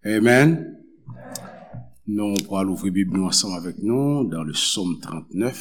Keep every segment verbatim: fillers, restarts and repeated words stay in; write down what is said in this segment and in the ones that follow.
Amen. Nou pral ouvri Bib nou ansanm avèk nou dans le psaume trente-neuf,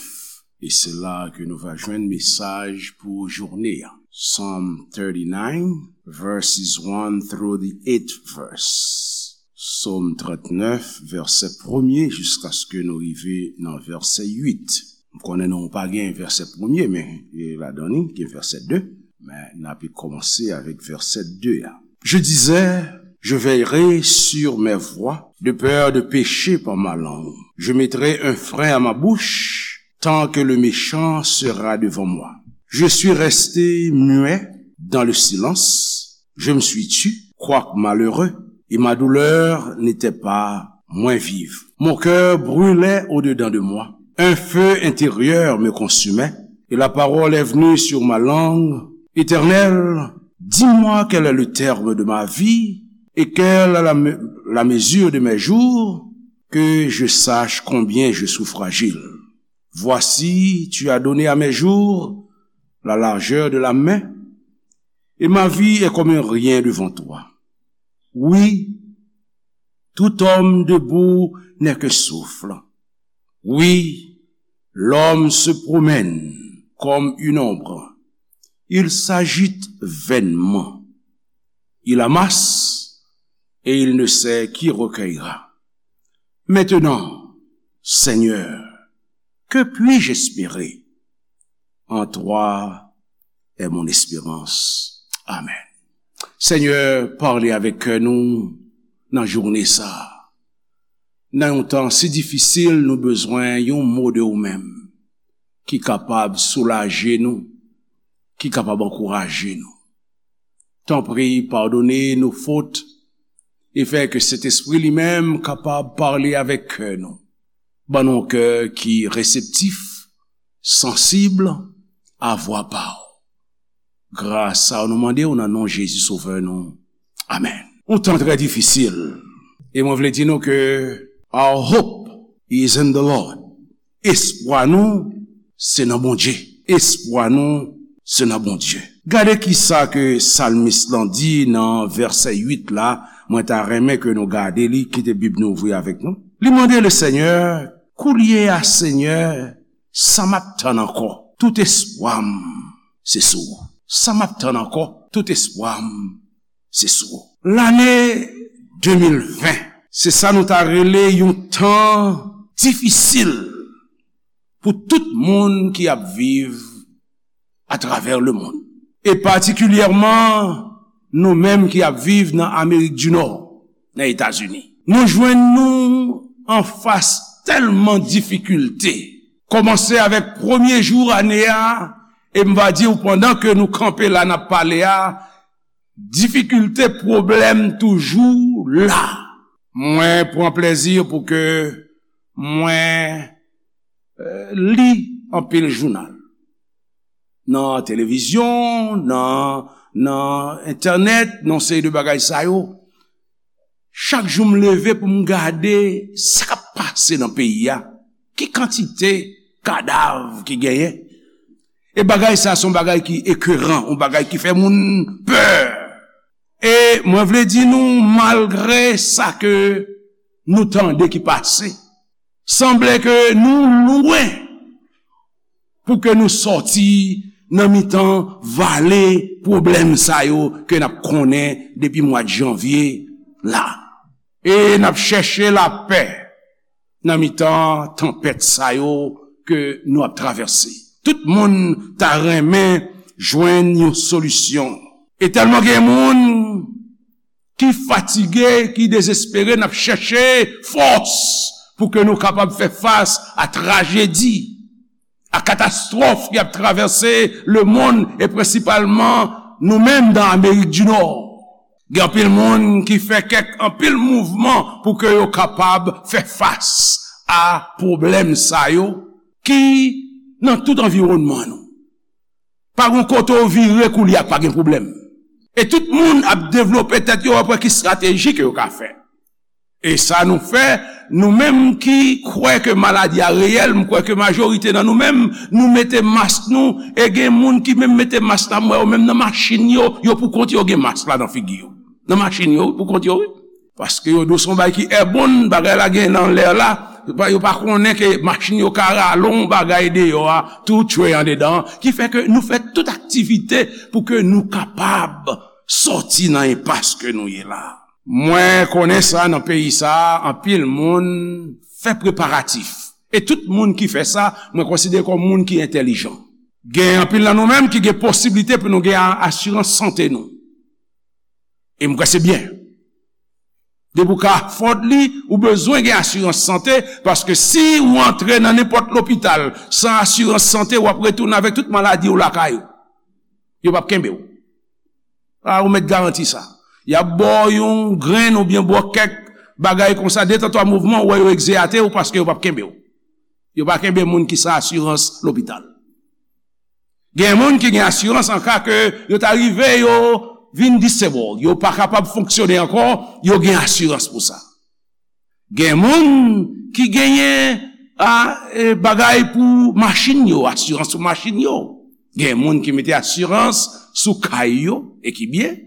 e se la ke nou va jwenn mesaj pou jounen an. Psalm thirty-nine, verses one through the eighth verse. Psaume trente-neuf, vèsè premye jiskaske nou rive nan vèsè uit. M konnen nou pa gen vèsè premye, men e ladan li gen vèsè de. Men n ape kòmanse avèk vèsè de a. Je disais, je veillerai sur mes voies, de peur de pécher par ma langue. Je mettrai un frein à ma bouche, tant que le méchant sera devant moi. Je suis resté muet dans le silence, je me suis tu, quoique malheureux, et ma douleur n'était pas moins vive. Mon cœur brûlait au-dedans de moi. Un feu intérieur me consumait, et la parole est venue sur ma langue. Éternel, dis-moi quel est le terme de ma vie, et quelle est la me-, la mesure de mes jours, que je sache combien je suis fragile. Voici, tu as donné à mes jours la largeur de la main, et ma vie est comme un rien devant toi. Oui, tout homme debout n'est que souffle. Oui, l'homme se promène comme une ombre. Il s'agite vainement. Il amasse et il ne sait qui recueillera. Maintenant, Seigneur, que puis-je espérer? En toi est mon espérance. Amen. Senyè, pale avèk kè nou nan jounen sa a. Nan yon tan si difisil, nou bezwen yon mo de ou menm ki kapab soulaje nou, ki kapab ankouraje nou. Tanpri, padone nou fot e fè ke Sentespri li menm kapab pale avèk kè nou. Ban nou yon kè ki reseptif, sansib a vwa pa w. Gras sa nou mande w nan non Jezi Sovè nou. Amèn. Yon tan trè difisil. E mwen vle di nou ke our hope is in the Lord. Espwa nou se nan Bondye. Espwa nou se nan Bondye. Gade kisa ke salmis lan di nan vèsè uit la, mwen ta renmen ke nou gade li, kite Bib nou ouvri avèk nou. Li mande le Senyè, koulye a Senyè, sa m ap tann ankò? Tout espwa m se sou ou. Sa m ap tann ankò? Tout espwa m se sou ou. Lane de mil ven, se sa nou ta rele yon tan difisil pou tout moun ki ap viv atravè lemonn. E patikilyèman, nou menm ki ap viv nan Amerik di Nò, nan Etazini. Nou jwenn nou anfas tèlman difikilte. Kòmanse avèk premye jou ane a, e m va di w, pandan ke nou kanpe la, n ap pale a, difikilte, pwoblèm toujou la. Mwen pran plezi pou ke mwen, eh, li anpil jounal. Nan televizyon, nan, nan entènèt, nan seri de bagay sa yo. Chak jou m leve pou m gade sa k ap pase nan peyi a. Ki kantite kadav ki genyen. E bagay sa se yon bagay ki ekeran, yon bagay ki fè moun pè. E mwen vle di nou, malgre sa ke nou tande ki pase, sanble ke nou lwen pou ke nou sòti nan mitan vale pwoblèm sa yo ke n ap konnen depi mwa janvye la. E n ap chèche lapè nan mitan tanpèt sa yo ke nou ap travèse. Tout moun ta renmen jwenn yon solisyon. E tèlman gen moun ki fatige, ki dezespere, n ap chèche fòs pou ke nou kapab fè fas a trajedi, a katastwòf ki ap travèse lemonn e prensipalman nou menm nan Amerik di Nò. Gen anpil moun ki fè kèk, anpil mouvman pou ke yo kapab fè fas a pwoblèm sa yo ki nan tout anviwònman nou. Pa gen kote w vire koulye a k pa gen pwoblèm. E tout moun ap devlope tèt yo, ap wè ki estrateji ke yo ka fè. E sa nou fè, nou menm ki kwè ke maladi a reyèl, m kwè ke majorite nan nou menm, nou mete mask nou, e gen moun ki menm mete mask la, m wè yo menm nan machin yo, yo pou kont yo gen mask la nan figi yo. Nan machin yo, pou kont yo, wi. Paske yo di w se yon bagay ki èbòn, bagay la gen nan lè la, yo pa konnen ke machin yo ka rale yon bagay deyò a, tou tchwe andedan, ki fè ke nou fè tout aktivite pou ke nou kapab sòti nan enpas ke nou ye la. Mwen konnen sa nan peyi sa, anpil moun fè preparatif. E tout moun ki fè sa, mwen konsidere kòm moun ki entèlijan. Gen anpil nan nou menm ki gen posiblite pou nou gen a-, asirans sante nou. E m kwè se byen. Depi w ka afòd li, ou bezwen gen asirans sante, paske si ou antre nan nenpòt lopital san asirans sante, w ap retounen avèk tout maladi w lakay ou. Yo p ap kenbe w. A, ou mèt garanti sa. Y ap ba w yon grenn oubyen ba w kèk bagay konsa, de tan twa mouvman, ou wè yo egzeyate w paske yo p ap kenbe w. Yo pa kenbe moun ki san asirans lopital. Gen moun ki gen asirans an ka ke yo ta rive, yo vin disabled, yo pa kapab fonksyone ankò, yo gen asirans pou sa. Gen moun ki genyen a, e, bagay pou machin yo, asirans pou machin yo. Gen moun ki mete asirans sou kay yo, e ki byen.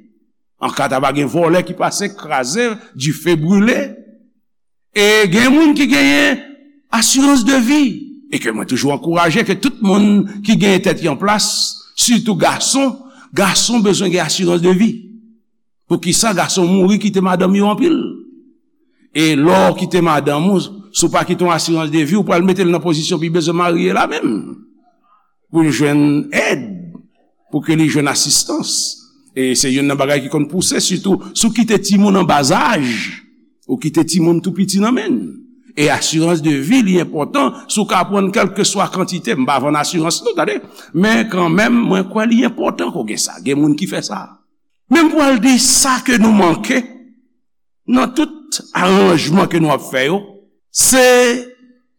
An ka ta va gen vòlè ki pase, kraze, dife brile. E gen moun ki genyen asirans de vi. E ke mwen toujou ankouraje ke tout moun ki genyen tèt yo an plas, sitou gason, gason bezwen gen asirans de vi. Poukisa gason mouri kite madanm yo anpil? E lè w kite madanm ou, si w pa kite yon asirans de vi, ou pral mete l nan pozisyon pou l bezwen marye la menm. Pou l jwenn èd, pou ke li jwenn asistans. E se youn nan bagay ki konn pouse, sitou si w kite timoun an bazaj, ou kite timoun tou piti nan men l. E asirans de vi, li enpòtan, si w ka pran kèlkeswa kantite, m pa vann asirans non, tande, men kanmenm, mwen kwè li enpòtan ke w gen sa. Gen moun ki fè sa. Men m pral di sa ke nou manke nan tout aranjman ke nou ap fè yo, se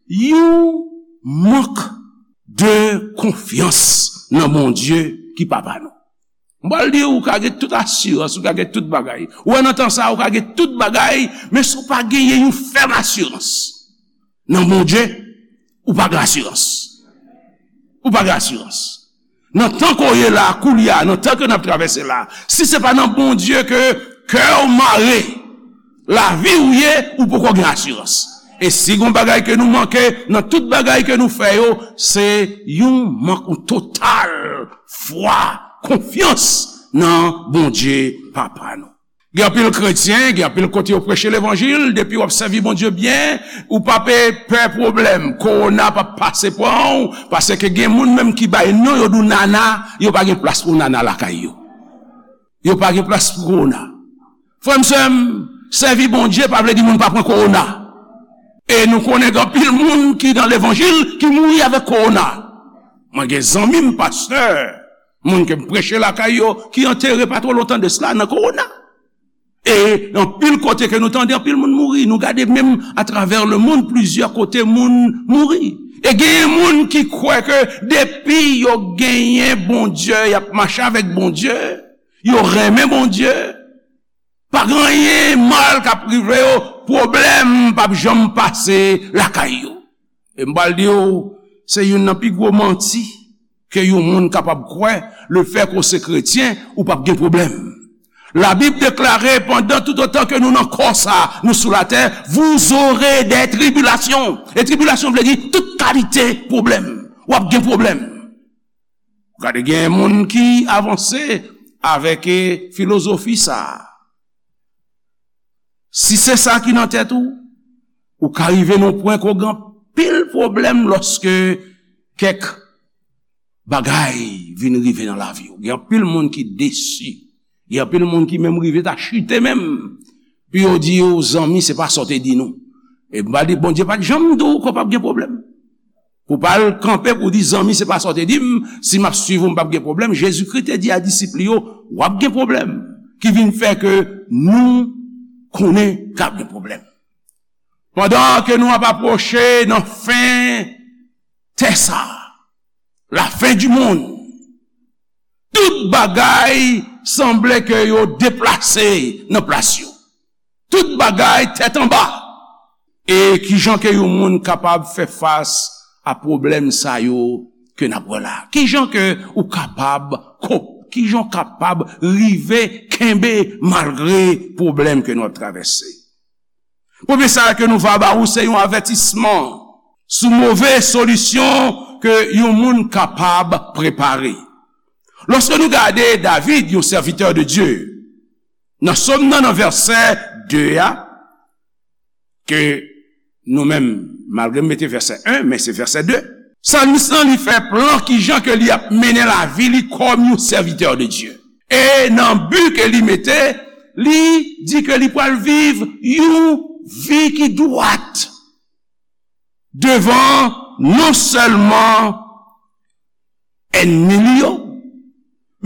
yon mank de konfyans nan Bondye ki Papa nou. M pral di w, ou ka gen tout asirans, ou ka gen tout bagay. Ou wè nan tan sa a, ou ka gen tout bagay, men si w pa genyen yon fèm asirans nan Bondye, ou pa gen asirans. Ou pa gen asirans. Nan tan ke w ye la, koulye a, nan tan ke n ap travèse la, si se pa nan Bondye ke kè w mare, lavi w ye, ou poko gen asirans. E si gon bagay ke nou manke nan tout bagay ke nou fè yo, se yon mank, yon total fwa, konfyans nan Bondye Papa nou. Gen anpil kretyen, gen anpil kote yo preche levanjil, depi w ap sèvi Bondye byen, ou pa pe pè pwoblèm, kowona p ap pase pran w, paske gen moun menm ki bay non, yo di w nana, yo pa gen plas pou nana lakay yo. Yo pa gen plas pou kowona. Frè m, sè m, sèvi Bondye pa vle di moun pa pran kowona. E nou konnen gen anpil moun ki nan levanjil ki mouri avèk kowona. Mwen gen zanmi m, pastè, moun ke m preche lakay yo, ki antere pa twò lontan de sila nan kowona. E anpil kote ke nou tande anpil moun mouri, nou gade menm atravè lemonn, plizyè kote moun mouri. E genyen moun ki kwè ke depi yo genyen Bondye, y ap mache avèk Bondye, yo renmen Bondye, pa gen anyen mal k ap rive yo, pwoblèm p ap janm pase lakay yo. E m pral di w, se youn nan pi gwo manti ke yon moun kapab kwè, lefètke w se kretyen, ou p ap gen pwoblèm. Labib deklare, pandan toutotan ke nou nan kò sa, nou sou latè, vous aurez des tribulations. E tribilasyon vle di tout kalite pwoblèm. W ap gen pwoblèm. Gade, gen moun ki avanse avèk, e, filozofi sa a. Si se sa ki nan tèt ou, ou ka rive nan pwen ke w gen anpil pwoblèm lòske kèk bagay vin rive nan lavi w. Gen anpil moun ki desi. Gen anpil moun ki menm rive ta chite menm. Pou yo di yo, zanmi, se pa sa w te di nou. E m pral di, Bondye pa t janm di w ke w p ap gen pwoblèm. Pou pa al kanpe pou di, zanmi, se pa sa w te di m, si m ap swiv ou, m p ap gen pwoblèm. Jezikri te di a disip li yo, w ap gen pwoblèm. Ki vin fè ke nou konnen k ap gen pwoblèm. Pandan ke nou ap apwoche nan fen tè sa, la fin du monde, tout bagay sanble ke yo deplase nan plas yo. Tout bagay tèt anba. E kijan ke yon moun kapab fè fas a pwoblèm sa yo ke n ap wè la? Kijan ke ou kapab kop-, kijan w kapab rive kenbe malgre pwoblèm ke nou ap travèse? Premye sa ke nou va ba ou, se yon avètisman sou move solisyon ke yon moun kapab prepare. Lòske nou gade David, yon sèvitè de Dye, nan Sòm nan, nan vèsè de a, ke nou menm, malgre m mete vèsè en, men se vèsè de. Salmis lan, li fè plan kijan ke li ap mennen lavi li kòm yon sèvitè de Dye. E nan bi ke li mete, li di ke li pral viv yon vi ki dwat devan non sèlman ènmi li yo,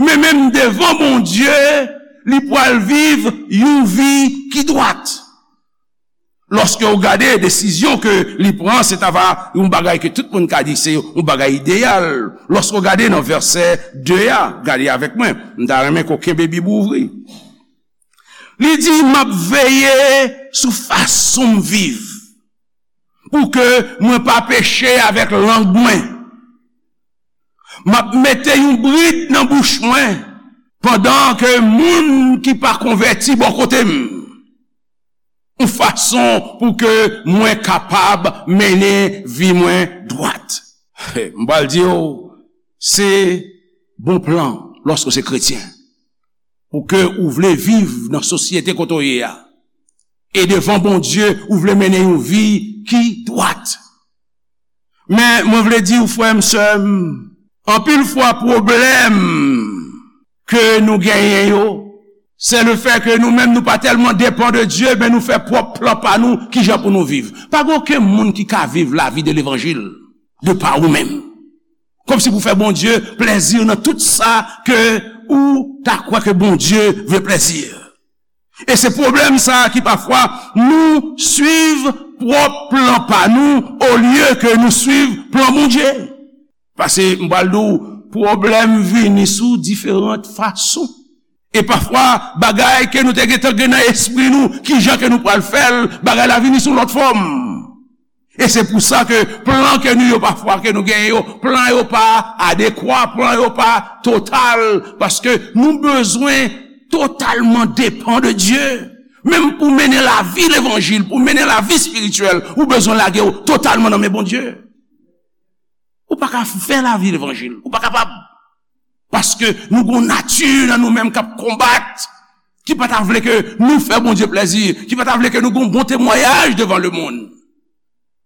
men menm devan Bondye, li pral viv yon vi ki dwat. Lòske w gade desizyon ke li pran, se ta va yon bagay ke tout moun ka di se yon bagay ideyal. Lòske w gade nan vèsè de a, gade avèk mwen, m ta renmen ke w kenbe Bib ou ouvri. Li di, "M ap veye sou fason m viv, pou ke mwen pa peche avèk lang mwen. M ap mete yon brid nan bouch mwen, pandan ke moun ki pa konvèti bò kote m, yon fason pou ke mwen kapab mennen vi mwen dwat." M pral di w, se bon plan lòske w se kretyen, pou ke ou vle viv nan sosyete kote w ye a. E devan Bondye, ou vle mennen yon vi ki dwat. Men, mwen vle di w, frè m, sè m, anpil fwa pwoblèm ke nou genyen yo, se le fè ke nou menm nou pa tèlman depan de Dye, men nou fè pwòp plan pa nou, kijan pou nou viv. Pa gen okenn moun ki ka viv lavi de levanjil de pa ou menm. Kòmsi pou fè Bondye plèzi nan tout sa ke ou ta kwè ke Bondye vle plèzi. E se pwoblèm sa a ki pafwa nou swiv pwòp plan pa nou olye ke nou swiv plan Bondye. Paske m pral di w, pwoblèm vini sou diferan fason. E pafwa, bagay ke nou te gentan gen nan espri nou, kijan ke nou pral fè l, bagay la vini sou lòt fòm. E se pou sa ke plan ke nou yo pafwa ke nou genyen yo, plan yo pa adekwa, plan yo pa total, paske nou bezwen totalman depan de Dye. Menm pou mennen lavi levanjil, pou mennen lavi espirityèl, ou bezwen lage w totalman nan men Bondye. Ou pa ka fè lavi levanjil, ou pa kapab. Paske nou gon nati nan nou menm k ap konbat, ki pa ta vle ke nou fè Bondye plèzi, ki pa ta vle ke nou gon bon temwayaj devan lemonn.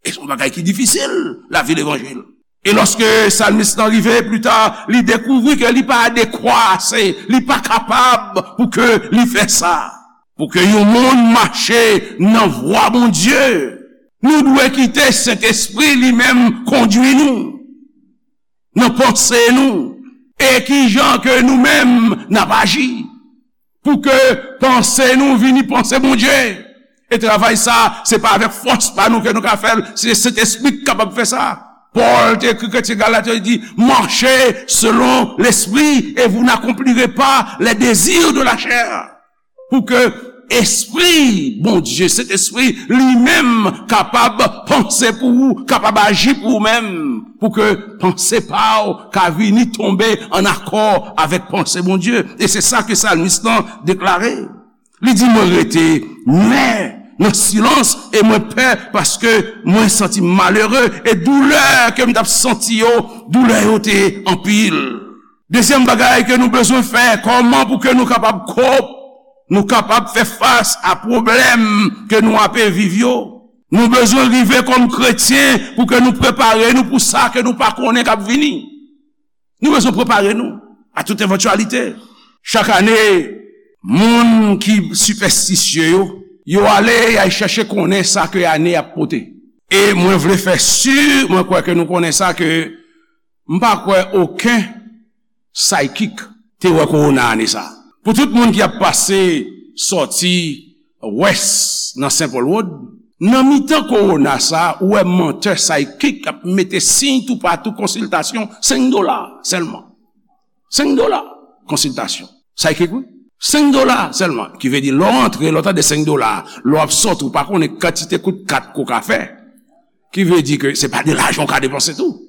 E se yon bagay ki difisil, lavi levanjil. E lòske salmis lan rive pita, li dekouvri ke li pa adekwa ase, li pa kapab pou ke li fè sa. Pou ke yon moun mache nan vwa Bondye, nou dwe kite Sentespri li menm kondui nou nan panse nou, e kijan ke nou menm n ap aji, pou ke panse nou vini panse Bondye. E travay sa, se pa avèk fòs pa nou ke nou ka fè l, se Sentespri ki kapab fè sa. Pòl te ekri kretyen Galat yo, li di, "Marchez selon l'esprit et vous n'accomplirez pas les désirs de la chair." Pou ke Espri Bondye, Sentespri li menm kapab panse pou ou, kapab aji pou ou menm, pou ke panse pa w ka vini tonbe an akò avèk panse Bondye. E se sa ke salmis lan deklare. Li di, "Mwen rete nwè nan silans e mwen pè paske mwen santi m malere e doulè ke m t ap santi yo, doulè yo te anpil." Dezyèm bagay ke nou bezwen fè, kòman pou ke nou kapab kop, nou kapab fè fas a pwoblèm ke nou ape viv yo? Nou bezwen rive kòm kretyen pou ke nou prepare nou pou sa ke nou pa konnen k ap vini. Nou bezwen prepare nou a tout evantyalite. Chak ane, moun ki sipèstisye yo, yo ale, y al chèche konnen sa ke ane ap pote. E mwen vle fè si, mwen kwè ke nou konnen sa, ke m pa kwè okenn psychic te wè kowona ane sa. Pou tout moun ki ap pase sòti West nan Saint Paul Road, nan mitan kowona sa, ou wè mantè psychic ap mete siy toupatou, konsiltasyon, senk dola sèlman. Senk dola konsiltasyon. Psychic, wi. Senk dola sèlman. Ki vle di, lè w antre, lè w tande senk dola, lè w ap sòti, ou pa konnen kantite kout kat ke w ka fè. Ki vle di ke se pa de lajan w ka depanse tou.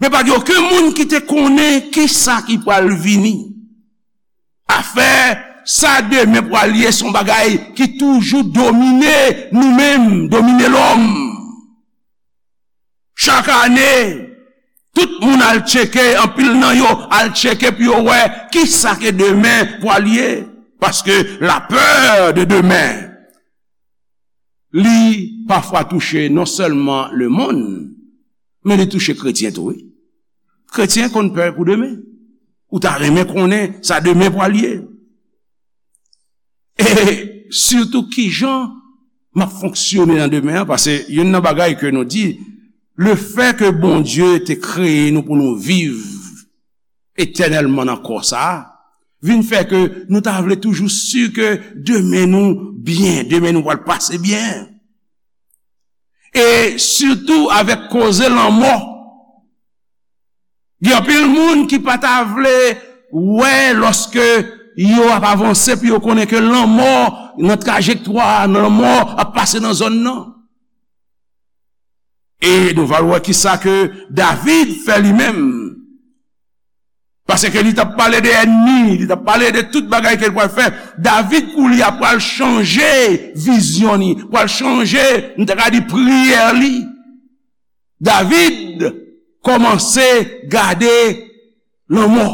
Men pa gen okenn moun ki te konnen kisa ki pral vini. Afè Sa demen pral ye se yon bagay ki toujou domine nou menm, domine lòm. Chak ane, tout moun al tcheke, anpil nan yo al tcheke pou yo wè kisa ke demen pral ye. Paske la peur de demain, li pafwa touche non sèlman lemonn, men li touche kretyen tou, wi. Kretyen konn pè pou demen. Ou ta renmen konnen sa demen pral ye. E sitou kijan m ap fonksyone nan demen an, paske youn nan bagay ke nou di, lefètke Bondye te kreye nou pou nou viv etènèlman nan kò sa a, vin fè ke nou ta vle toujou si ke demen nou byen, demen nou pral pase byen. E sitou avèk koze lanmò. Gen anpil moun ki pa ta vle wè lòske yo ap avanse, pou yo konnen ke lanmò nan trajektwa, lanmò ap pase nan zòn nan. E nou va wè kisa ke David fè li menm. Paske li t ap pale de ènmi, li t ap pale de tout bagay ke l pral fè. David, kou li a, pral chanje vizyon li, pral chanje, nou ta ka di, priyè li. David kòmanse gade lanmò.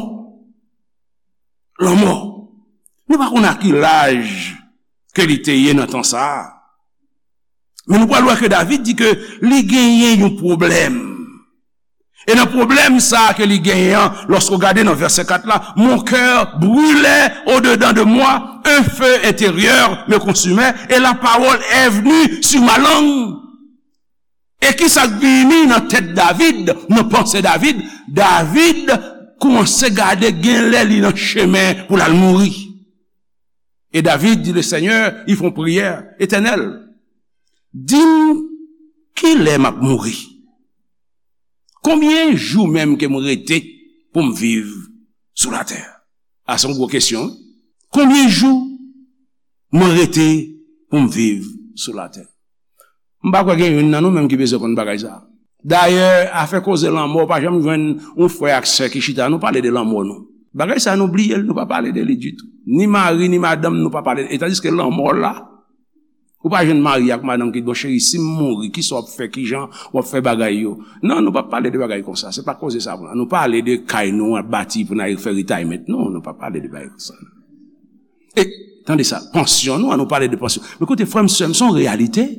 Lanmò. Nou pa konn a ki laj ke li te ye nan tan sa a. Men nou pral wè ke David di ke li genyen yon pwoblèm. E nan pwoblèm sa a ke li genyen an, lòske w gade nan vèsè kat la, mon cœur brûlait au-dedans de moi, un feu intérieur me consumait, et la parole est venue sur ma langue. E kisa k vini nan tèt David, nan panse David? David kòmanse gade gen lè li nan chemen pou l al mouri. E David di le Seigneur, li fè yon priyè, Etènèl, di m kilè m ap mouri. Konbyen jou menm ke m rete pou m viv sou latè? A, se yon gwo kesyon, wi. Konbyen jou mwen rete pou m viv sou latè? M pa kwè gen youn nan nou menm ki bezwen konn bagay sa a. Dayè, afè koze lanmò, w pa janm jwenn yon frè ak sè ki chita, nou pale de lanmò nou. Bagay sa a, nou bliye l, nou pa pale de li ditou. Ni mari, ni madanm, nou pa pale. E tandiske lanmò la, ou pa jwenn mari ak madanm ki di, bon, cheri, si m mouri, kisa w ap fè, kijan w ap fè bagay yo? Non, nou pa pale de bagay konsa. Se pa koze sa a pou nou. Nou pale de kay nou ap bati pou n al fè retirement. Non, nou pa pale de bagay konsa. E, tande sa, pansyon nou, an nou pale de pansyon. Men koute, frè m, sè m, se yon reyalite.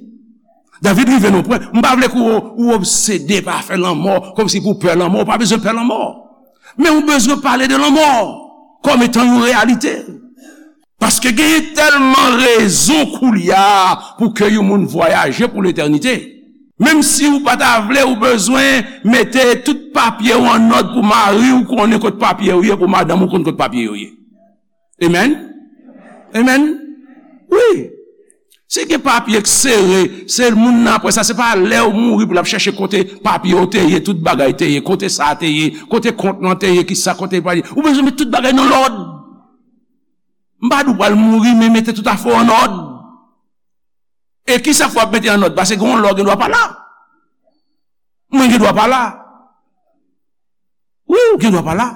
David rive nan pwen, m pa vle ke w, ou obsede pa afè lanmò, kòmsi pou w pè lanmò, ou pa bezwen pè lanmò. Men ou bezwen pale de lanmò kòm etan yon reyalite. Paske genyen tèlman rezon koulye a pou ke yon moun vwayaje pou letènite. Menm si ou pa ta vle, ou bezwen mete tout papye w an nòd pou mari w konnen kot papye yo ye, pou madanm ou konn kot papye yo ye. Amen? Amen? Wi. Si gen papye k sere, se moun nan apre sa, se pa lè w mouri pou l ap chèche kote papye w te ye, tout bagay te ye, kote sa te ye, kote kont lan te ye, kisa kote l pa ye. Ou bezwen met tout bagay nan lòd. M pa di w pral mouri, men mete tout afè w an òd. E kisa fè w ap mete an òd? Paske gen yon lè w gen dwa pa la. Mwen gen dwa pa la. Wi, ou gen dwa pa la.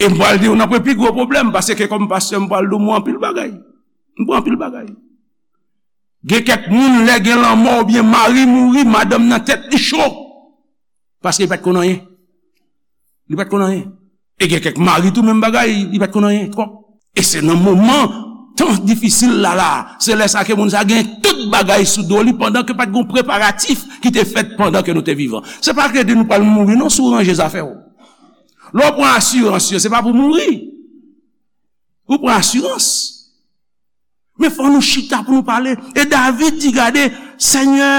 E m pral di w nan pwen pi gwo pwoblèm, paske kòm pastè, m pral di w, m wè anpil bagay. M wè anpil bagay. Gen kèk moun, lè gen lanmò oubyen mari mouri, madanm nan tèt li cho. Paske li pa t konn anyen. Li pa t konn anyen. E gen kèk mari tou, menm bagay, li pa t konn anyen twòp. E se nan moman tan difisil la, la, se lè sa ke moun sa gen tout bagay sou do li, pandan ke pa t gen preparatif ki te fèt pandan ke nou te vivan. Se pa ke di nou pral mouri, non, si w ranje zafè w. Lè w pran asirans yo, se pa pou mouri. Ou pran asirans. Men fò nou chita pou nou pale. E David di, gade, Senyè,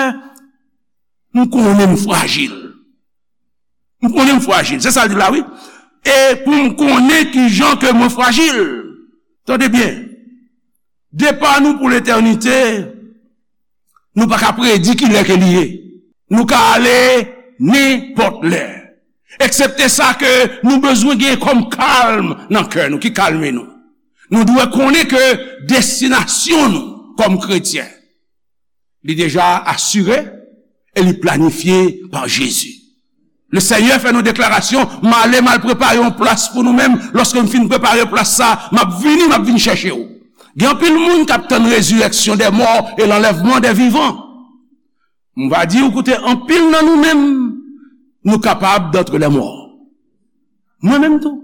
m konnen m frajil. M konnen m frajil. Se sa l di la, wi. E pou m konnen kijan ke mwen frajil. Tande byen. Depa nou pou letènite, nou pa ka predi ki lè ke li ye. Nou ka ale nenpòt lè. Eksepte sa ke nou bezwen gen kòm kalm nan kè nou, ki kalme nou. Nou dwe konnen ke destinasyon nou kòm kretyen, li deja asire e li planifye pa Jezi. Le Senyè fè nou deklarasyon, "M ale, m al prepare yon plas pou nou menm. Lòske m fin prepare plas sa, m ap vini, m ap vin chèche w." Gen anpil moun k ap tann rezireksyon dè mò e lanlèvman dè vivan. M va di w, koute, anpil nan nou menm, nou kapab d'antre les morts. Mwen menm tou.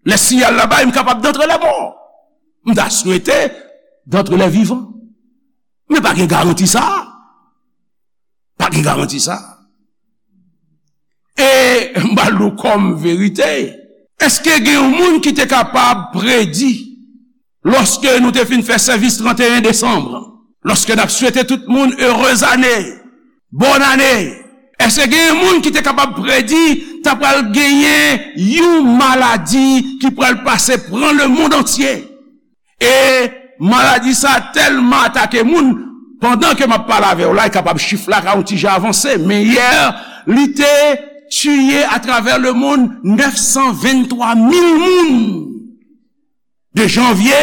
Lè siyal la bay, m kapab d'antre les morts. M ta swete d'antre les vivants. Men pa gen garanti sa. Pa gen garanti sa. E m ba nou kòm verite. Èske gen yon moun ki te kapab predi, lòske nou te fin fè sèvis trannteyen desanm, lòske n ap swete tout moun heureuse année, bonne année, èske gen yon moun ki te kapab predi ta pral genyen yon maladi ki pral pase pran le monde entier? E maladi sa tèlman atake moun, pandan ke m ap pale avè w la, e kapab chif la ka yon ti jan avanse, men yè, li te tiye atravè le monde nèf san venntwa mil moun. De janvye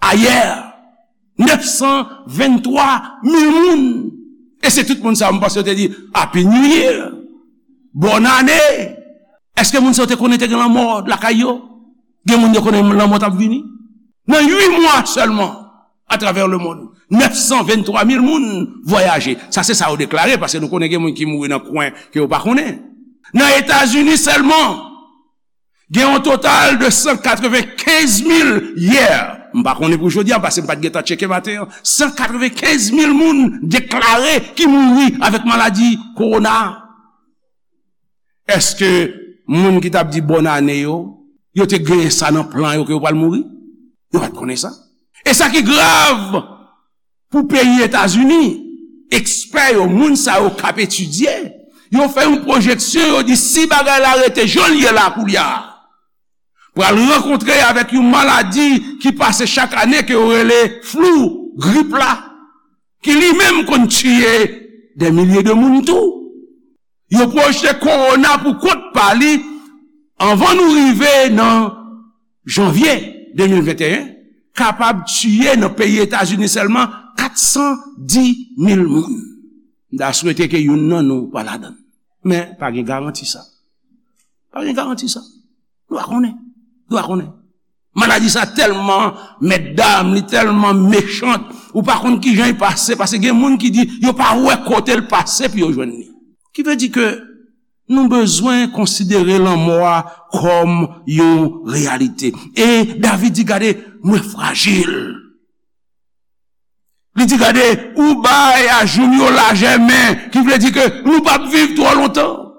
a yè, nèf san venntwa mil moun. E se tout moun sa yo, m panse yo te di, "Happy New Year! Bòn ane!" Èske moun sa yo te konnen te gen lanmò lakay yo? Gen moun yo konnen lanmò t ap vini. Nan uit mwa sèlman, atravè lemonn, nèf san venntwa mil moun vwayaje. Sa se sa yo deklare, paske nou konnen gen moun ki mouri nan kwen ke yo pa konnen. Nan Etazini sèlman, gen yon total de san katrevenkenz mil yè. M pa konnen pou jodi a, paske m pa t gentan tcheke maten an. San katrevenkenz mil moun deklare ki mouri avèk maladi kowona a. Èske moun ki t ap di bòn ane yo, yo te genyen sa nan plan yo ke yo pral mouri? Yo pa t konnen sa. E sa ki grav pou peyi Etazini, ekspè yo, moun sa yo k ap etidye, yo fè yon pwojeksyon, yo di si bagay la rete jan l ye la koulye a, pral rankontre avèk yon maladi ki pase chak ane ke yo rele flou, grip la, ki li menm konn tiye dè milye de moun tou. Yo pwojte kowona pou kont pa li anvan nou rive nan janvye de mil venteyen, kapab tiye nan peyi Etazini sèlman kat san di mil moun. M ta swete ke youn nan nou pa ladan l. Men, pa gen garanti sa. Pa gen garanti sa. Nou pa konnen. Nou pa konnen. Maladi sa tèlman mètdam, li tèlman mechan, ou pa konn kijan li pase, paske gen moun ki di yo pa wè kote l pase pou yo jwenn li. Ki vle di ke nou bezwen konsidere lanmò a kòm yon reyalite. E David di, "Gade, mwen frajil." Li di, "Gade, ou bay ajoum yo lajè men," ki vle di ke nou p ap viv twò lontan.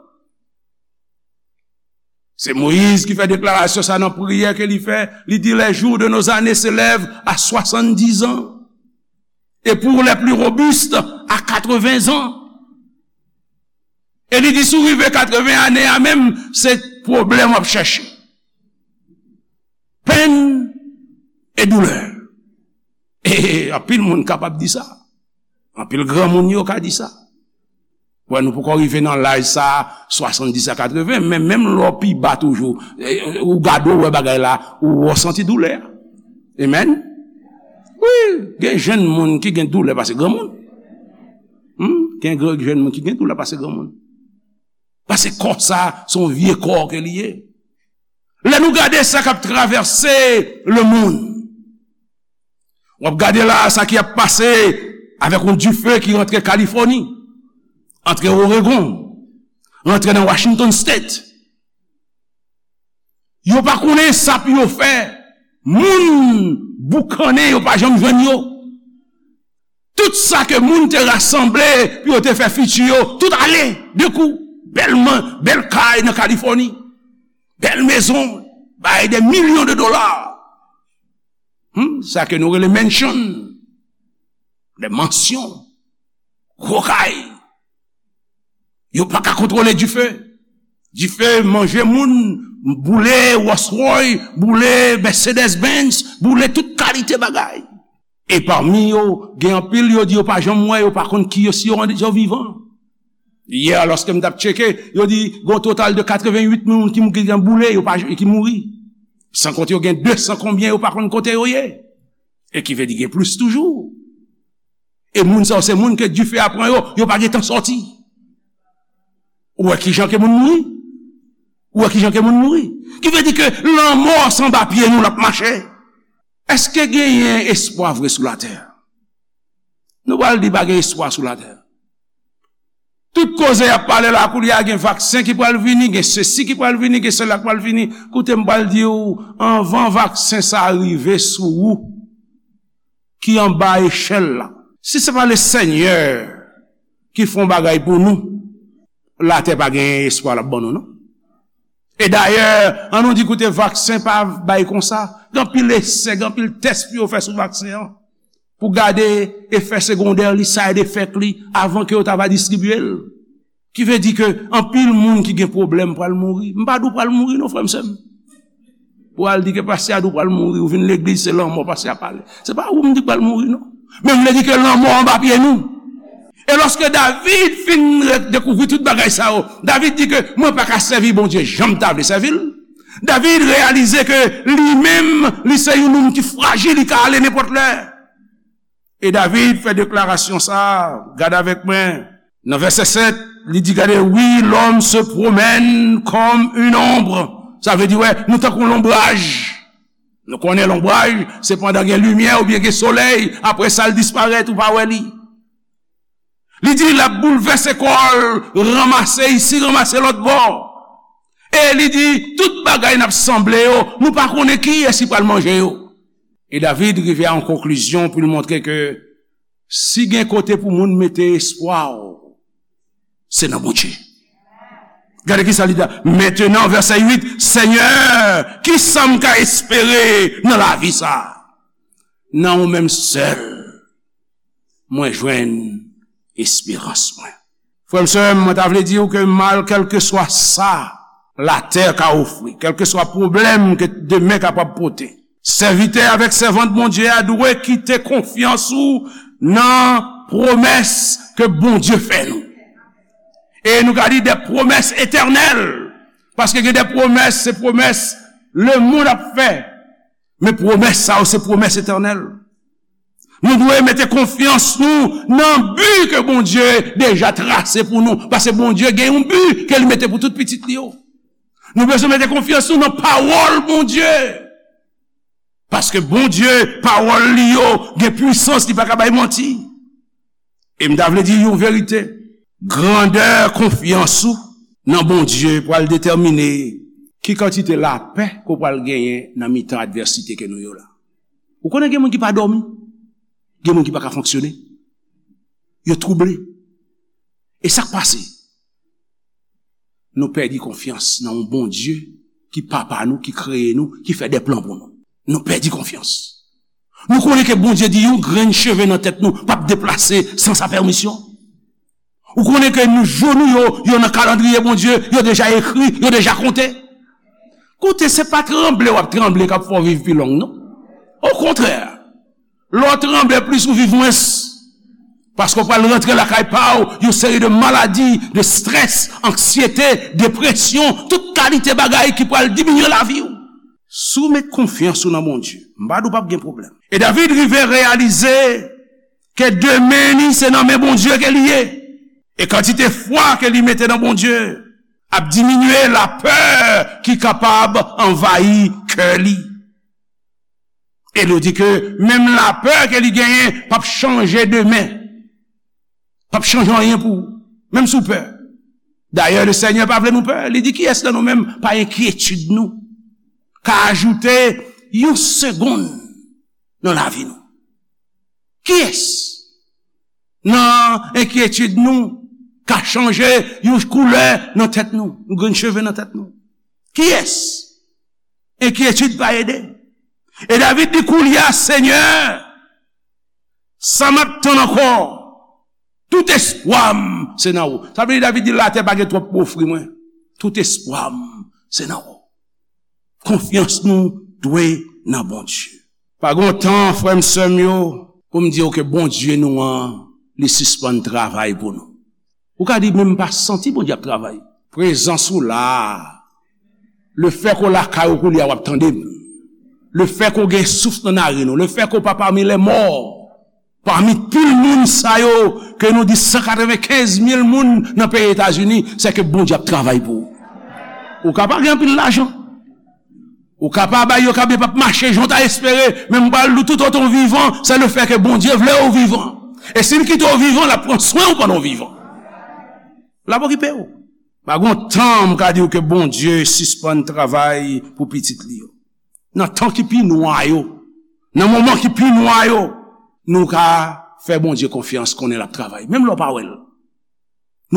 Se Moyiz ki fè deklarasyon sa nan priyè ke li fè. Li di, "Les jours de nos années s'élèvent à soixante-dix ans, et pour les plus robustes, à quatre-vingts ans." E li di, "Si w rive katreven ane a menm, se pwoblèm w ap chèche. Penn e doulè." E anpil moun kapab di sa. Anpil granmoun yo ka di sa. Wè, nou poko rive nan laj sa, swasanndis a katreven, men menm lè w pi ba toujou, e, ou gade w wè bagay la, ou, ou santi doulè a. Amen. Wi, gen jenn moun ki gen doulè pase granmoun. Hmm? Gen gr-, jenn moun ki gen doulè pase granmoun. Paske kò sa, se yon vye kò ke li ye. Lè nou gade sa k ap travèse lemonn, w ap gade la sa ki ap pase avèk yon dife ki rantre Kalifòni, antre Oregon, rantre nan Washington State. Yo pa konnen sa pou yo fè. Moun boukannen, yo pa janm jwenn yo. Tout sa ke moun te rasanble pou yo te fè fiti yo, tout ale, de kou. Bèl man-, bèl kay nan Kalifòni, bèl mezon, bay de milyon de dola. Hmm, sa ke nou rele mansion, de mansyon, gwo kay. Yo pa ka kontwole dife. Dife manje moun, boule Rolls Royce, boule Mercedes Benz, boule tout kalite bagay. E pami yo, gen anpil yo di yo pa janm wè, yo pa konn ki yo, si yo, yo vivan. Yè, lòske m t ap tcheke, yo di gon total de katrevenwit moun ki, ki gen boule, yo pa, ki mouri. San konte yo gen de san konbyen, yo pa konn kote yo ye. E ki vle di gen plis toujou. E moun sa yo se moun ke dife a pran yo, yo pa gen tan sòti. Ou wè kijan ke moun mouri? Ou wè kijan ke moun mouri? Ki vle di ke lanmò se anba pye nou l ap mache. Èske genyen espwa vre sou latè? Nou pral di pa gen espwa sou latè. Tout koze y ap pale la, koulye a gen vaksen ki pral vini, gen sesi ki pral vini, gen sela ki pral vini. Koute, m pral di w, anvan vaksen sa a rive sou ou, ki anba echèl la, si se pa Lesenyè ki fè yon bagay pou nou, latè pa gen espwa l ap ban nou, non. E dayè, an nou di, koute, vaksen pa bay konsa. Gen anpil esè, gen anpil tès pou yo fè sou vaksen an, pou gade efè segondè li, side effect li, avan ke yo ta va distribye l. Ki vle di ke anpil moun ki gen pwoblèm pral mouri. M pa di w pral mouri non, frè m, sè m. Pou al di ke pastè a di w pral mouri, ou vin legliz, se lanmò pastè a pale. Se pa ou m di k pral mouri non. Men m vle di ke lanmò anba pye nou. E lòske David fin re- dekouvri tout bagay sa yo, David di ke mwen pa ka sèvi Bondye jan m ta vle sèvi l. David reyalize ke li menm, li se yon nonm ki frajil, li ka ale nenpòt lè. E David fè deklarasyon sa a, gade avèk mwen, nan vèsè sèt, li di, gade, oui, l'homme se promène comme une ombre. Sa vle di, wè, nou tankou lonbraj. Nou konnen lonbraj, se pandan gen limyè oubyen gen solèy, apre sa, l disparèt, ou pa wè li. Li di, l ap boulvèse kò l, ranmase isi, ranmase lòt bò. E li di, tout bagay n ap sanble yo, nou pa konnen kiyès ki pral manje yo. E David rive a yon konklizyon pou l montre ke si gen kote pou moun mete espwa w, se nan Bondye. Gade ki sa li di. Mentenan, vèsè uit, Senyè, ki sa m ka espere nan lavi sa a? Nan ou menm sèl, mwen jwenn esperans mwen. Frè m, sè m, mwen ta vle di w ke mal, kèlkeswa sa latè ka ofri, kèlkeswa pwoblèm ke demen kapab pote, sèvitè avèk sèvant Bondye a dwe kite konfyans ou nan pwomès ke Bondye fè nou. E nou ka di de pwomès etènèl, paske gen de pwomès, se pwomès lemonn ap fè. Men pwomès sa yo, se pwomès etènèl. Nou dwe mete konfyans nou nan bi ke Bondye deja trase pou nou. Paske Bondye gen yon bi ke li mete pou tout pitit li yo. Nou bezwen mete konfyans nou nan pawòl Bondye. Paske Bondye, pawòl li yo, gen pwisans, li pa ka bay manti. E m ta vle di yon verite. Grandè konfyans ou nan Bondye pral detèmine ki kantite lapè ke w pral genyen nan mitan advèsite ke nou yo la. Ou konnen gen moun ki pa dòmi, gen moun ki pa ka fonksyone, yo twouble. E sa k pase? Nou pèdi konfyans nan yon Bondye ki papa nou, ki kreye nou, ki fè de plan pou nou. Nou pèdi konfyans. Nou konnen ke Bondye di yon grenn cheve nan tèt nou p ap deplase san sa pèmisyon. Ou konnen ke nou, jou nou yo, yo nan kalandriye Bondye, yo deja ekri, yo deja konte. Koute, se pa tranble w ap tranble k ap fè w viv pi long, non. Okontrè, lè w tranble plis, ou viv mwens. Paske w pral rantre lakay pa w, yon seri de maladi, de strès, anksyete, depresyon, tout kalite bagay ki pral diminye lavi w. Si w met konfyans ou nan Bondye, m pa di w p ap gen pwoblèm. E David rive reyalize ke demen li se nan men Bondye ke li ye. E kantite fwa ke li mete nan Bondye ap diminye lapè ki kapab anvayi kè li. E nou di ke menm lapè ke li genyen p ap chanje demen. P ap chanje anyen pou ou, menm si w pè. Dayè, Lesenyè pa vle nou pè. Li di, kiyès nan nou menm pa enkyetid nou ka ajoute yon segonn nan lavi nou? Kiyès nan enkyetid nou ka chanje yon koulè nan tèt nou, yon grenn cheve nan tèt nou? Kiyès? Enkyetid pa ede. E David di, koulye a, Senyè, sa m ap tann ankò? Tout espwa m se nan ou. Sa vle di, David di, latè pa gen twòp pou ofri mwen. Tout espwa m se nan ou. Konfyans nou dwe nan Bondye. Pa gen tan, frè m, sè m yo, pou m di w ke Bondye nou an, li sispann travay pou nou. Ou ka di, men m pa santi Bondye ap travay. Prezans ou la a. Lefètke w lakay ou koulye a, w ap tande m. Lefètke w gen souf nan naren ou. Lefètke w pa pami lèmò. Pami pil moun sa yo, ke nou di san katrevenkenz mil moun nan peyi Etazini, se ke Bondye ap travay pou ou. Ou ka pa gen anpil lajan. Ou ka pa bay yo, ka byen p ap mache jan w ta espere, men m pral di w, tout otan w vivan, se le fè ke Bondye vle w vivan. E si l kite w vivan, l ap pran swen w pandan w vivan. L ap okipe w. Pa gen yon tan m ka di w ke Bondye sispann travay pou pitit li yo. Nan tan ki pi nwa yo, nan moman ki pi nwa yo, nou ka fè Bondye konfyans, konnen l ap travay. Menm lè w pa wè l.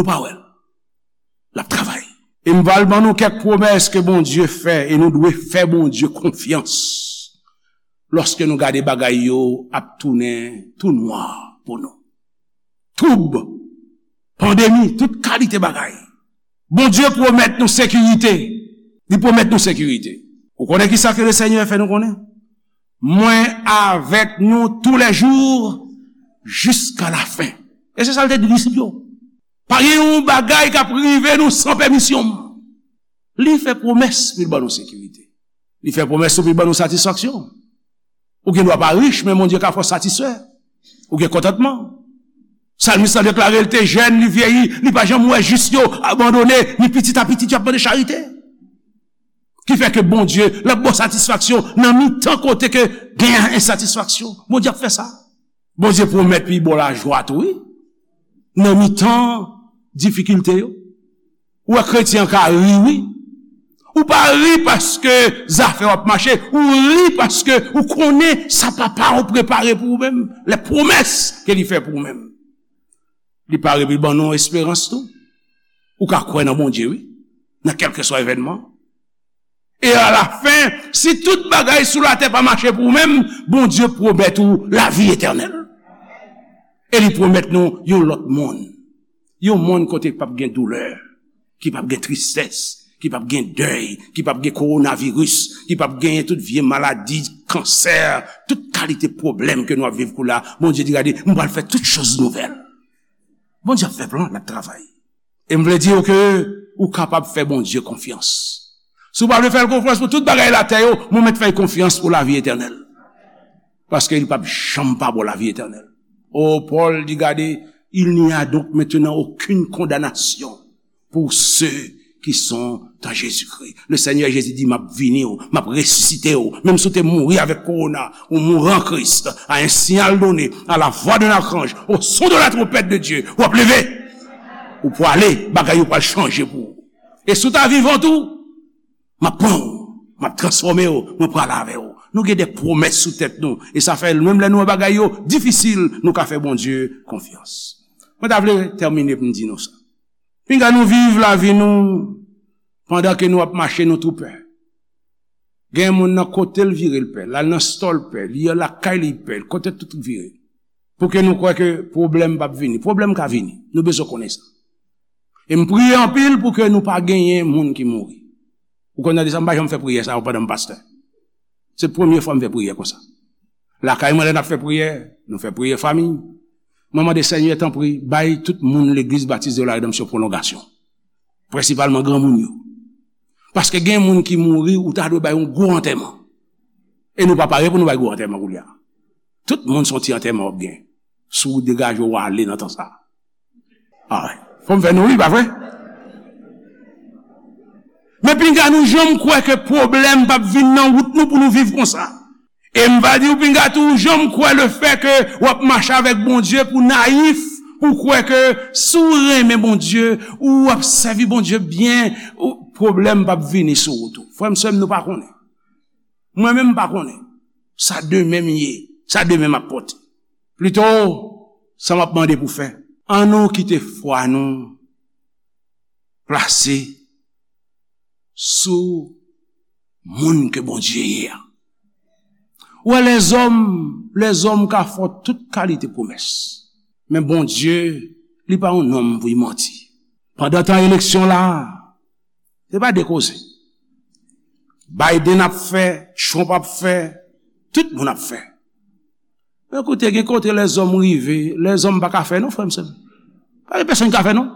Nou pa wè l. L ap travay. E m pral ban nou kèk pwomès ke Bondye fè, e nou dwe fè Bondye konfyans lòske nou gade bagay yo ap tounen tou nwa pou nou. Twoub, pandemi, tout kalite bagay. Bondye pwomèt nou sekirite. Li pwomèt nou sekirite. Ou konnen ki sa ke le Senyè fè nou konnen? Mwen avèk nou toulèjou jiska lafen. E se sa l te di disip yo. Pa gen yon bagay k ap rive nou san pèmisyon m. Li fè pwomès pou l ban nou sekirite. Li fè pwomès tou pou l ban nou satisfaksyon. Ou gen dwa pa rich, men Bondye ka fè w satisfè. Ou gen kontantman. Salmis la deklare l te jèn, li vyeyi, li pa janm wè jis yo abandone, ni pitit a pitit yo ap mande charite. Ki fè ke Bondye, l ap ba w satisfaksyon nan mitan kote ke gen ensatisfaksyon. Bondye ap fè sa. Bondye pwomèt pou l ba w lajwa tou, wi. Nan mitan difikilte yo. Ou wè kretyen an ka ri, wi. Ou pa ri paske zafè w ap mache. Ou ri paske ou konnen sa Papa w prepare pou ou menm. Les promesses ke li fè pou ou menm. Li pare pou l ban nou esperans tou. Ou ka kwè nan Bondye, wi. Nan kèlkeswa evènman. E alafen, si tout bagay sou latè pa mache pou ou menm, Bondye pwomèt ou lavi etènèl. E li pwomèt nou yon lòt monn. Yon monn kote k p ap gen doulè, ki p ap gen tristès, ki p ap gen dèy, ki p ap gen kowonaviris, ki p ap genyen tout vye maladi, kansè, tout kalite pwoblèm ke nou ap viv koulye a. Bondye di, gade, m pral fè tout choz nouvèl. Bondye ap fè plan, l ap travay. E m vle di w ke ou kapab fè Bondye konfyans. Si w pa vle fè l konfyans pou tout bagay latè yo, mwen mèt fè l konfyans pou lavi etènèl. Paske li p ap janm pa ba w lavi etènèl. O, Pòl di, gade, il n'y a donc maintenant aucune condamnation pour ceux qui sont en Jésus-Christ. Le Seigneur Jésus dit, m ap vini w, m ap resisite w. Menm si w te mouri avèk kowona, ou mouri an Kris, à un signal donné, à la voix d'un archange, au son de la trompette de Dieu, w ap leve. Ou pwale, bagay yo pral chanje pou ou. E si w ta vivan tou, m ap pran w, m ap transfòme w, mwen prale avè w. Nou gen de pwomès sou tèt nou, e sa fè menm lè nou wè bagay yo difisil, nou ka fè Bondye konfyans. Mwen ta vle tèmine pou m di nou sa. Pinga nou viv lavi nou pandan ke nou ap mache, nou tou pè. Gen moun nan kote l vire l pè, l al nan stòl pè, li lakay li pè, kote tout vire. Pou ke nou kwè ke pwoblèm p ap vini. Pwoblèm ka vini. Nou bezwen konnen sa. E m priye anpil pou ke nou pa genyen moun ki mouri. Ou konn tande sa, m pa janm fè priyè sa yo pandan m pastè. Se premye fwa m fè priyè konsa. Lakay mwen, lè n ap fè priyè, nou fè priyè fanmi. Mwen mande Senyè, tanpri, bay tout moun Legliz Batis de la Redanmsyon pwolongasyon. Prensipalman granmoun yo. Paske gen moun ki mouri, ou ta dwe bay yon gwo antèman. E nou pa pare pou nou bay gwo antèman koulye a. Tout moun se yon ti antèman w ap gen. Si w degaje w ale nan tan sa a. Ah, fò m fè nou ri, pa vre? Men pinga nou janm kwè ke pwoblèm p ap vin nan wout nou pou nou viv konsa. E m va di w pinga tou, janm kwè le fè ke w ap mache avèk Bondye pou nayif, pou kwè ke si w renmen Bondye, ou ap sèvi Bondye byen, ou, pwoblèm p ap vini sou wout ou. Frè m, sè m, nou pa konnen. Mwen menm m pa konnen. Sa demen m ye, sa demen m ap pote. Plito, sa m ap mande pou fè. An nou kite fwa nou plase sou moun ke Bondye ye a. Ou wè, lèzòm, lèzòm ka fè w tout kalite pwomès. Men Bondye, li pa yon nonm pou l manti. Pandan tan eleksyon la, se pa de koze. Biden ap fè, Trump ap fè, tout moun ap fè. Men koute, gen kote lèzòm rive, lèzòm pa ka fè non, frè m, sè m. Pa gen pèsonn ki ka fè non.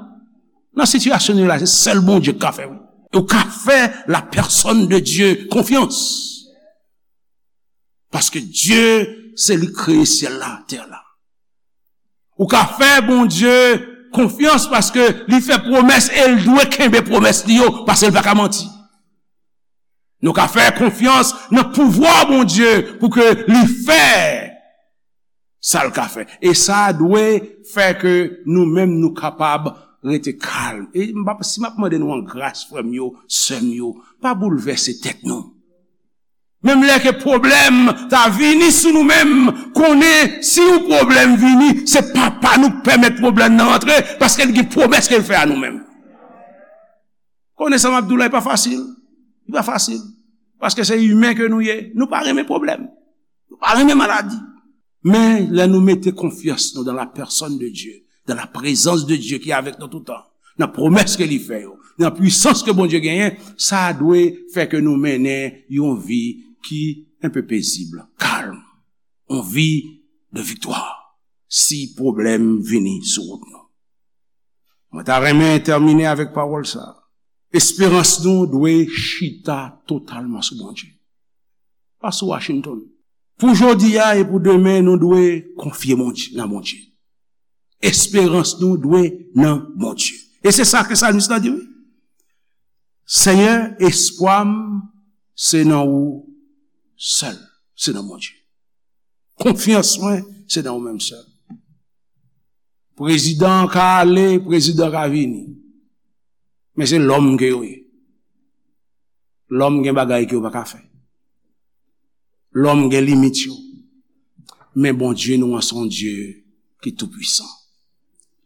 Nan sitiyasyon nou ye la, se sèl Bondye ki ka fè, wi. E w ka fè la personne de Dieu konfyans. Paske Dye, se li k kreye syèl la, tè la. Ou ka fè Bondye konfyans paske li fè pwomès e l dwe kenbe pwomès li yo, paske l pa ka manti. Nou ka fè konfyans nan pouvwa Bondye pou ke li fè sa l ka fè. E sa dwe fè ke nou menm nou kapab rete kalm. E m p ap, si m ap mande nou an gras, frè m yo, sè m yo, pa boulvèse tèt nou. Menm lè ke pwoblèm ta vini sou nou menm, konnen si yon pwoblèm vini, se Papa nou k pèmèt pwoblèm nan rantre, paske l gen pwomès ke l fè a nou menm. Konnen sa m ap di w la, li pa fasil. Li pa fasil. Paske se imen ke nou ye. Nou pa renmen pwoblèm. Nou pa renmen maladi. Men lè nou mete konfyans nou dans la personne de Dieu, dans la présence de Dieu ki avèk nou toutan, nan pwomès ke li fè yo, nan pwisans ke Bondye genyen, sa dwe fè ke nou mennen yon vi ki enpe pezib, kalm, yon vi de viktwa. Si pwoblèm vini sou wout nou. Mwen ta renmen tèmine avèk pawòl sa. Esperans nou dwe chita totalman sou Bondye. Pa sou Washington. Pou jodi a e pou demen, nou dwe konfye Bondye, nan Bondye. Esperans nou dwe nan Bondye. E se sa ke salmis la di, wi. Senyè, espwa m, se nan ou sèl. Se nan Bondye. Konfyans mwen, se nan ou menm sèl. Prezidan ka ale, prezidan ka vini. Men se lòm ke yo ye. Lòm gen bagay ke yo pa ka fè. Lòm gen limit yo. Men Bondye nou an se yon Dye ki toupwisan.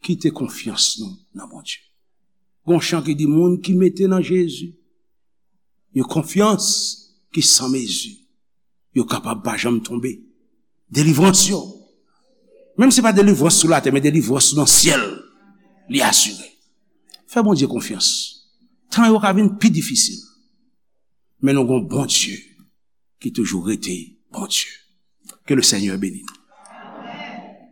Kite konfyans nou nan Bondye. Gon chan ki di, moun ki mete nan Jezi yon konfyans ki san mezi, yo kapab pa janm tonbe. Delivrans yo. Menm si pa delivrans sou latè, men delivrans nan syèl, li asire. Fè Bondye konfyans. Tan yo ka vin pi difisil. Men nou gon Bondye ki toujou rete Bondye. Ke le Senyè beni nou.